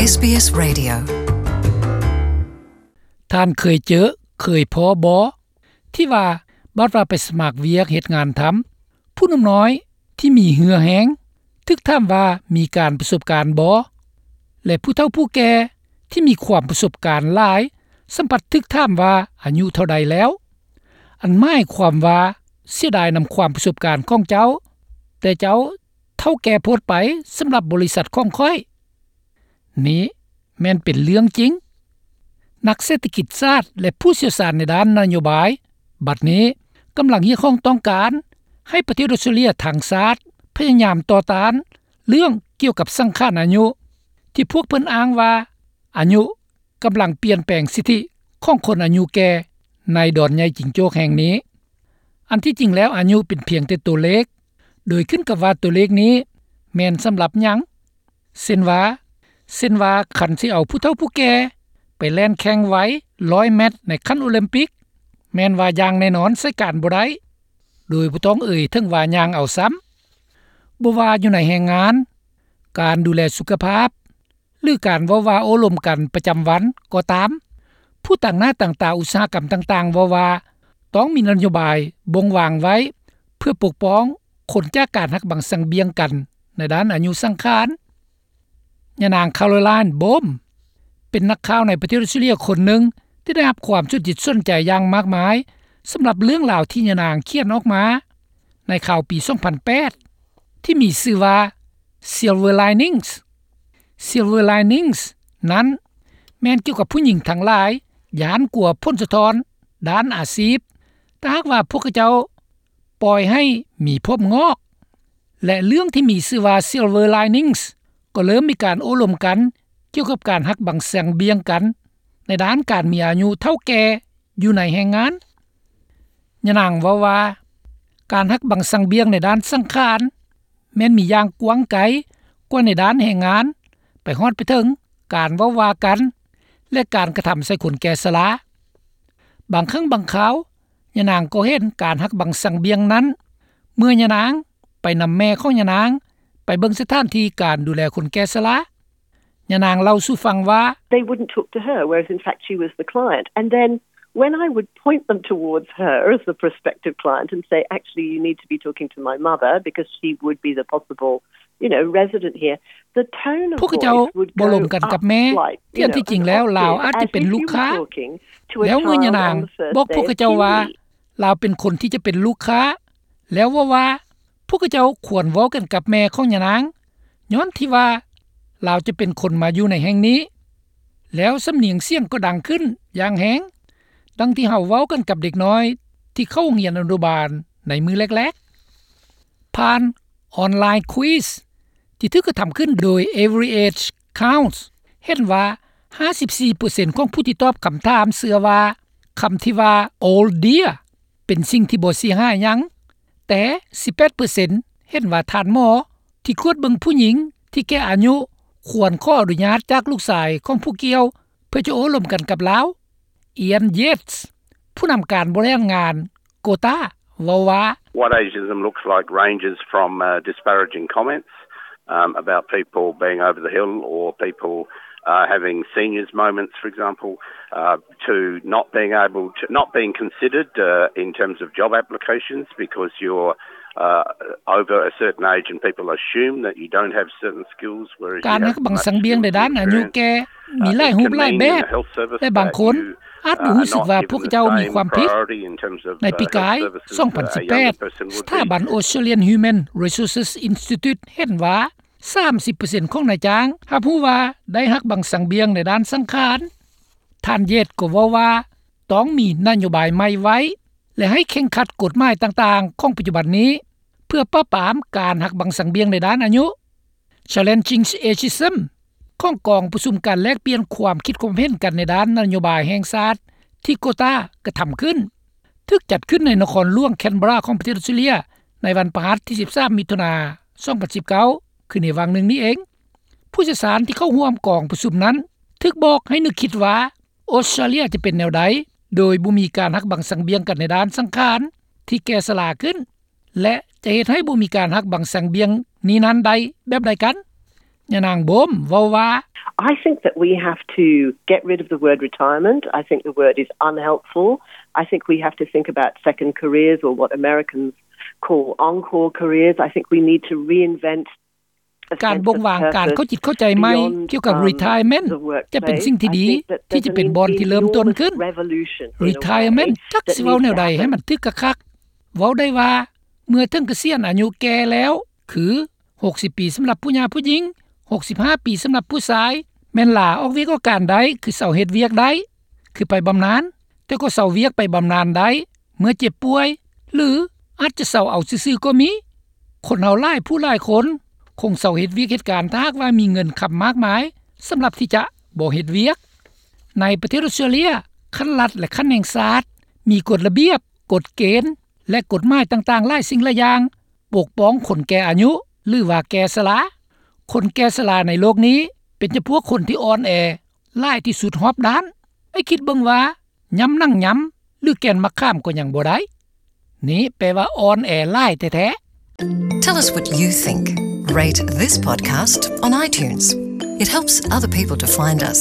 ເອສບີເອສ Radio. ທ່ານເຄີຍເຈີ ເຄີຍພໍ້ບໍ່ ທີ່ວ່າ ບັດວ່າໄປສະໝັກວຽກເຮັດງານທຳ ຜູ້ໜຸ່ມນ້ອຍທີ່ມີເຫື່ອແຮງ ຖືກຖາມວ່າມີການປະສົບການບໍ່ ແລະ ຜູ້ເຖົ້າຜູ້ແກ່ທີ່ມີຄວາມປະສົບການຫຼາຍ ສ່ຳພັດຖືກຖາມວ່າອາຍຸເທົ່າໃດແລ້ວ ອັນໝາຍຄວາມວ່າ ເສຍດາຍນຳຄວາມປະສົບການຂອງເຈົ້າ ແຕ່ເຈົ້າເຖົ້າແກ່ໂພດໄປ ສຳລັບບໍລິສັດຂອງຂ້ອຍ. ນີ້ແມ່ນເປັນເລື່ອງຈິງ. ນັກເສດຖະກິດສາດ ແລະ ຜູ້ຊ່ຽວຊານໃນດ້ານນະໂຍບາຍ ບັດນີ້ກຳລັງຮຽກຮ້ອງຕ້ອງການໃຫ້ປະເທດອອສເຕຣເລຍທັງຊາດ ພະຍາຍາມຕໍ່ຕ້ານເລື່ອງກ່ຽວກັບສັງຂານອາຍຸ ທີ່ພວກເພິ່ນອ້າງວ່າ ອາຍຸກຳລັງປ່ຽນແປງສິດທິຂອງຄົນອາຍຸແກ່ໃນດອນໃຫຍ່ຈິງໂຈກແຫ່ງນີ້. ອັນທີ່ຈິງແລ້ວອາຍຸເປັນພຽງແຕ່ຕົວເລກ ໂດຍຂຶ້ນກັບວ່າຕົວເລກນີ້ແມ່ນສຳລັບຫຍັງ. ເຊັ່ນວ່າ ເຊັ່ນວ່າ ຄັນຊິເອົາຜູ້ເຖົ້າຜູ້ແກ່ໄປແລ່ນແຂ່ງໄວຮ້ອຍແມັດໃນຂັ້ນໂອລິມປິກ ແມ່ນວ່າຢ່າງແນ່ນອນໃຊ້ການບໍ່ໄດ້ ໂດຍບໍ່ຕ້ອງເອີຍເຖິງວ່າຍ່າງເອົາຊ້ຳ. ບໍ່ວ່າຢູ່ໃນແຮງງານ, ການດູແລສຸຂະພາບ ຫຼື ການເວົ້າວ່າໂອ້ລົມກັນປະຈຳວັນກໍຕາມ, ຜູ້ຕາງໜ້າຕາງຕາອຸດສາຫະກຳຕ່າງໆເວົ້າວ່າ ຕ້ອງມີນະໂຍບາຍບົ່ງວາງໄວ້ ເພື່ອປົກປ້ອງຄົນຈາກການຫັກບັງສັງບຽງກັນໃນດ້ານອາຍຸສັງຂານ. ຍານາງ Caroline Bohm ເປັນນັກຂ່າວໃນປະເທດອອສເຕຣເລຍຄົນໜຶ່ງ ທີ່ໄດ້ຮັບຄວາມສົນຈິດສົນໃຈຢ່າງມາກມາຍ ສຳລັບເລື່ອງລາວທີ່ຍານາງຂຽນອອກມາ ໃນຂ່າວປີສອງພັນແປດ ທີ່ມີຊື່ວ່າ Silver Linings. Silver Linings ນັ້ນແມ່ນກ່ຽວກັບຜູ້ຍິງທັງຫຼາຍຢ້ານກົວຜົນສະທ້ອນດ້ານອາຊີບ ຖ້າຫາກວ່າພວກເຂົາເຈົ້າປ່ອຍໃຫ້ມີຜົມງອກ ແລະ ເລື່ອງທີ່ມີຊື່ວ່າ Silver Linings ກໍເລີ່ມມີການໂອ້ລົມກັນກ່ຽວກັບການຫັກບັງສັງບຽງກັນໃນດ້ານການມີອາຍຸເຖົ້າແກ່ຢູ່ໃນແຮງງານ. ຍານາງເວົ້າວ່າ ການຫັກບັງສັງບຽງໃນດ້ານສັງຂານ ແມ່ນມີຢ່າງກວ້າງໄກກວ່າໃນດ້ານແຮງງານ ໄປຮອດໄປເຖິງການເວົ້າວ່າກັນ ແລະ ການກະທຳໃສ່ຄົນແກ່ຊະລາ. ບາງຄັ້ງບາງຄາວ ຍານາງກໍເຫັນການຫັກບັງສັງບຽງນັ້ນ ເມື່ອຍານາງໄປນຳແມ່ຂອງຍານາງໄປເບິ່ງສະຖານທີ່ການດູແລຄົນແກ່ຊະລາ. ຍານາງເລົ່າສູ່ຟັງວ່າ They wouldn't talk to her, whereas in fact she was the client. And then when I would point them towards her as the prospective client and say, "Actually, you need to be talking to my mother because she would be the possible, you know, resident here," the tone of ພວກເຂົາເຈົ້າ voice would ບໍ່ລົມ go ກັນກັບ up ແມ່ slightly, ທີ່ you ອັນ know, ທີ່ຈິງແລ້ວ and ລາວ obviously, ອາດຈະເປັນ as if ລູກ you were ຄ້າ talking to a ແລ້ວເມື່ອຍານາງ child on the first ບອກ day ພວກເຂົາເຈົ້າ of ວ່າ two weeks. ລາວເປັນຄົນທີ່ຈະເປັນລູກຄ້າ ແລ້ວເວົ້າວ່າ ພວກເຂົາເຈົ້າຄວນເວົ້າກັນກັບແມ່ຂອງຍານາງ ຍ້ອນທີ່ວ່າລາວຈະເປັນຄົນມາຢູ່ໃນແຫ່ງນີ້ ແລ້ວສຳນຽງສຽງກໍດັງຂຶ້ນຢ່າງແຮງ ດັ່ງທີ່ເຮົາເວົ້າກັນກັບເດັກນ້ອຍທີ່ເຂົ້າໂຮງຮຽນອະນຸບານໃນມື້ແລກໆ. ຜ່ານອອນລາຍຄວິສທີ່ຖືກກະທຳຂຶ້ນໂດຍ Every Age Counts ເຫັນວ່າ ຫ້າສິບສີ່ເປີເຊັນຂອງຜູ້ທີ່ຕອບຄຳຖາມເຊື່ອວ່າ ຄຳທີ່ວ່າ Old Dear ເປັນສິ່ງທີ່ບໍ່ເສຍຫາຍຫຍັງ, ແຕ່ ສິບແປດເປີເຊັນ ເຫັນວ່າທ່ານໝໍທີ່ກວດເບິ່ງຜູ້ຍິງທີ່ແກ່ອາຍຸ ຄວນຂໍອະນຸຍາດຈາກລູກຊາຍຂອງຜູ້ກ່ຽວ ເພື່ອຈະໂອ້ລົມກັນກັບລາວ. Ian Yates ຜູ້ນຳການບໍລິຫານງານ Quota ເວົ້າວ່າ What ageism looks like ranges from, uh, disparaging comments, um, about people being over the hill or people, uh, having seniors moments, for example, uh, to not being able to, not being considered, uh, in terms of job applications because you're, uh, over a certain age and people assume that you don't have certain skills, whereas you have much skills and experience, uh, you know, ການຫັກບັງສັງບຽງໃນດ້ານອາຍຸແກ່ ມີຫຼາຍຮູບຫຼາຍແບບ ແລະ ບາງຄົນອາດບໍ່ຮູ້ສຶກວ່າພວກເຂົາເຈົ້າມີຄວາມຜິດ. ໃນປີກາຍ ສອງພັນສິບແປດ ສະຖາບັນ Australian Human Resources Institute ເຫັນວ່າ ສາມສິບເປີເຊັນຂອງນາຍຈ້າງຮັບຮູ້ວ່າໄດ້ຫັກບັງສັງບຽງໃນດ້ານສັງຂານ. ທ່ານ Yates ກໍເວົ້າວ່າ ຕ້ອງມີນະໂຍບາຍໃໝ່ໄວ້ ແລະ ໃຫ້ເຄັ່ງຄັດກົດໝາຍຕ່າງໆຂອງປັດຈຸບັນນີ້ ເພື່ອປາບປາມການຫັກບັງສັງບຽງໃນດ້ານອາຍຸ. Challenging Ageism ຂອງກອງປະຊຸມການແລກປ່ຽນຄວາມຄິດຄວາມເຫັນກັນໃນດ້ານນະໂຍບາຍແຫ່ງຊາດທີ່ Quota ກະທຳຂຶ້ນ ຖືກຈັດຂຶ້ນໃນນະຄອນຫຼວງ Canberra ຂອງປະເທດອອສເຕຣເລຍ ໃນວັນພະຫັດທີສິບສາມ ມິຖຸນາ ສອງພັນສິບເກົ້າ ຄືໃນຫວ່າງໜຶ່ງນີ້ເອງ. ຜູ້ຊ່ຽວຊານທີ່ເຂົ້າຮ່ວມກອງປະຊຸມນັ້ນ ຖືກບອກໃຫ້ນຶກຄິດວ່າ ອອສເຕຣເລຍຈະເປັນແນວໃດ ໂດຍບໍ່ມີການຫັກບັງສັງບຽງກັນໃນດ້ານສັງຂານທີ່ແກ່ຊະລາຂຶ້ນ ແລະ ຈະເຮັດໃຫ້ບໍ່ມີການຫັກບັງສັງບຽງນີ້ນັ້ນໄດ້ແບບໃດກັນ? ຍານາງໂບມເວົ້າວ່າ I think that we have to get rid of the word retirement. I think the word is unhelpful. I think we have to think about second careers, or what Americans call encore careers. I think we need to reinvent ການບົ່ງວາງການເຂົ້າຈິດເຂົ້າໃຈໃໝ່ກ່ຽວກັບ retirement ຈະເປັນສິ່ງທີ່ດີ ທີ່ຈະເປັນບ່ອນທີ່ເລີ່ມຕົ້ນຂຶ້ນ. Retirement ຈັກຊິເວົ້າແນວໃດໃຫ້ມັນຖືກຄັກໆ ເວົ້າໄດ້ວ່າເມື່ອເຖິງກະສຽນອາຍຸແກ່ແລ້ວ ຄື ຫົກສິບປີສຳລັບຜູ້ຫຍ່າຜູ້ຍິງ, ຫົກສິບຫ້າປີສຳລັບຜູ້ຊາຍ ແມ່ນລາອອກວຽກອອກການໄດ້ ຄືເຊົາເຮັດວຽກໄດ້ ຄືໄປບຳນານ ແຕ່ກໍເຊົາວຽກໄປບຳນານໄດ້ ເມື່ອເຈັບປ່ວຍ ຫຼື ອາດຈະເຊົາເອົາຊື່ໆກໍມີ. ຄົນເຮົາຫຼາຍຜູ້ຫຼາຍຄົນ ຄົງເຊົາເຮັດວຽກເຮັດການ ຖ້າຫາກວ່າມີເງິນຄຳມາກມາຍ ສຳລັບທີ່ຈະບໍ່ເຮັດວຽກ. ໃນປະເທດອອສເຕຣເລຍ ຂັ້ນລັດ ແລະ ຂັ້ນແຫ່ງຊາດ ມີກົດລະບຽບ, ກົດເກນ ແລະ ກົດໝາຍຕ່າງໆຫຼາຍສິ່ງຫຼາຍຢ່າງ ປົກປ້ອງຄົນແກ່ອາຍຸ ຫຼືວ່າແກ່ຊະລາ. ຄົນແກ່ຊະລາໃນໂລກນີ້ ເປັນຈຳພວກຄົນທີ່ອ່ອນແອຫຼາຍທີ່ສຸດຮອບດ້ານ. ໄອ້ຄິດເບິ່ງວ່າ ຫຍ້ຳໜັງຫຍ້ຳ ຫຼື ແກ່ນໝາກຂາມກໍຍັງບໍ່ໄດ້. ນີ້ແປວ່າອ່ອນແອຫຼາຍແທ້ໆ. Tell us what you think. Rate this podcast on iTunes. It helps other people to find us.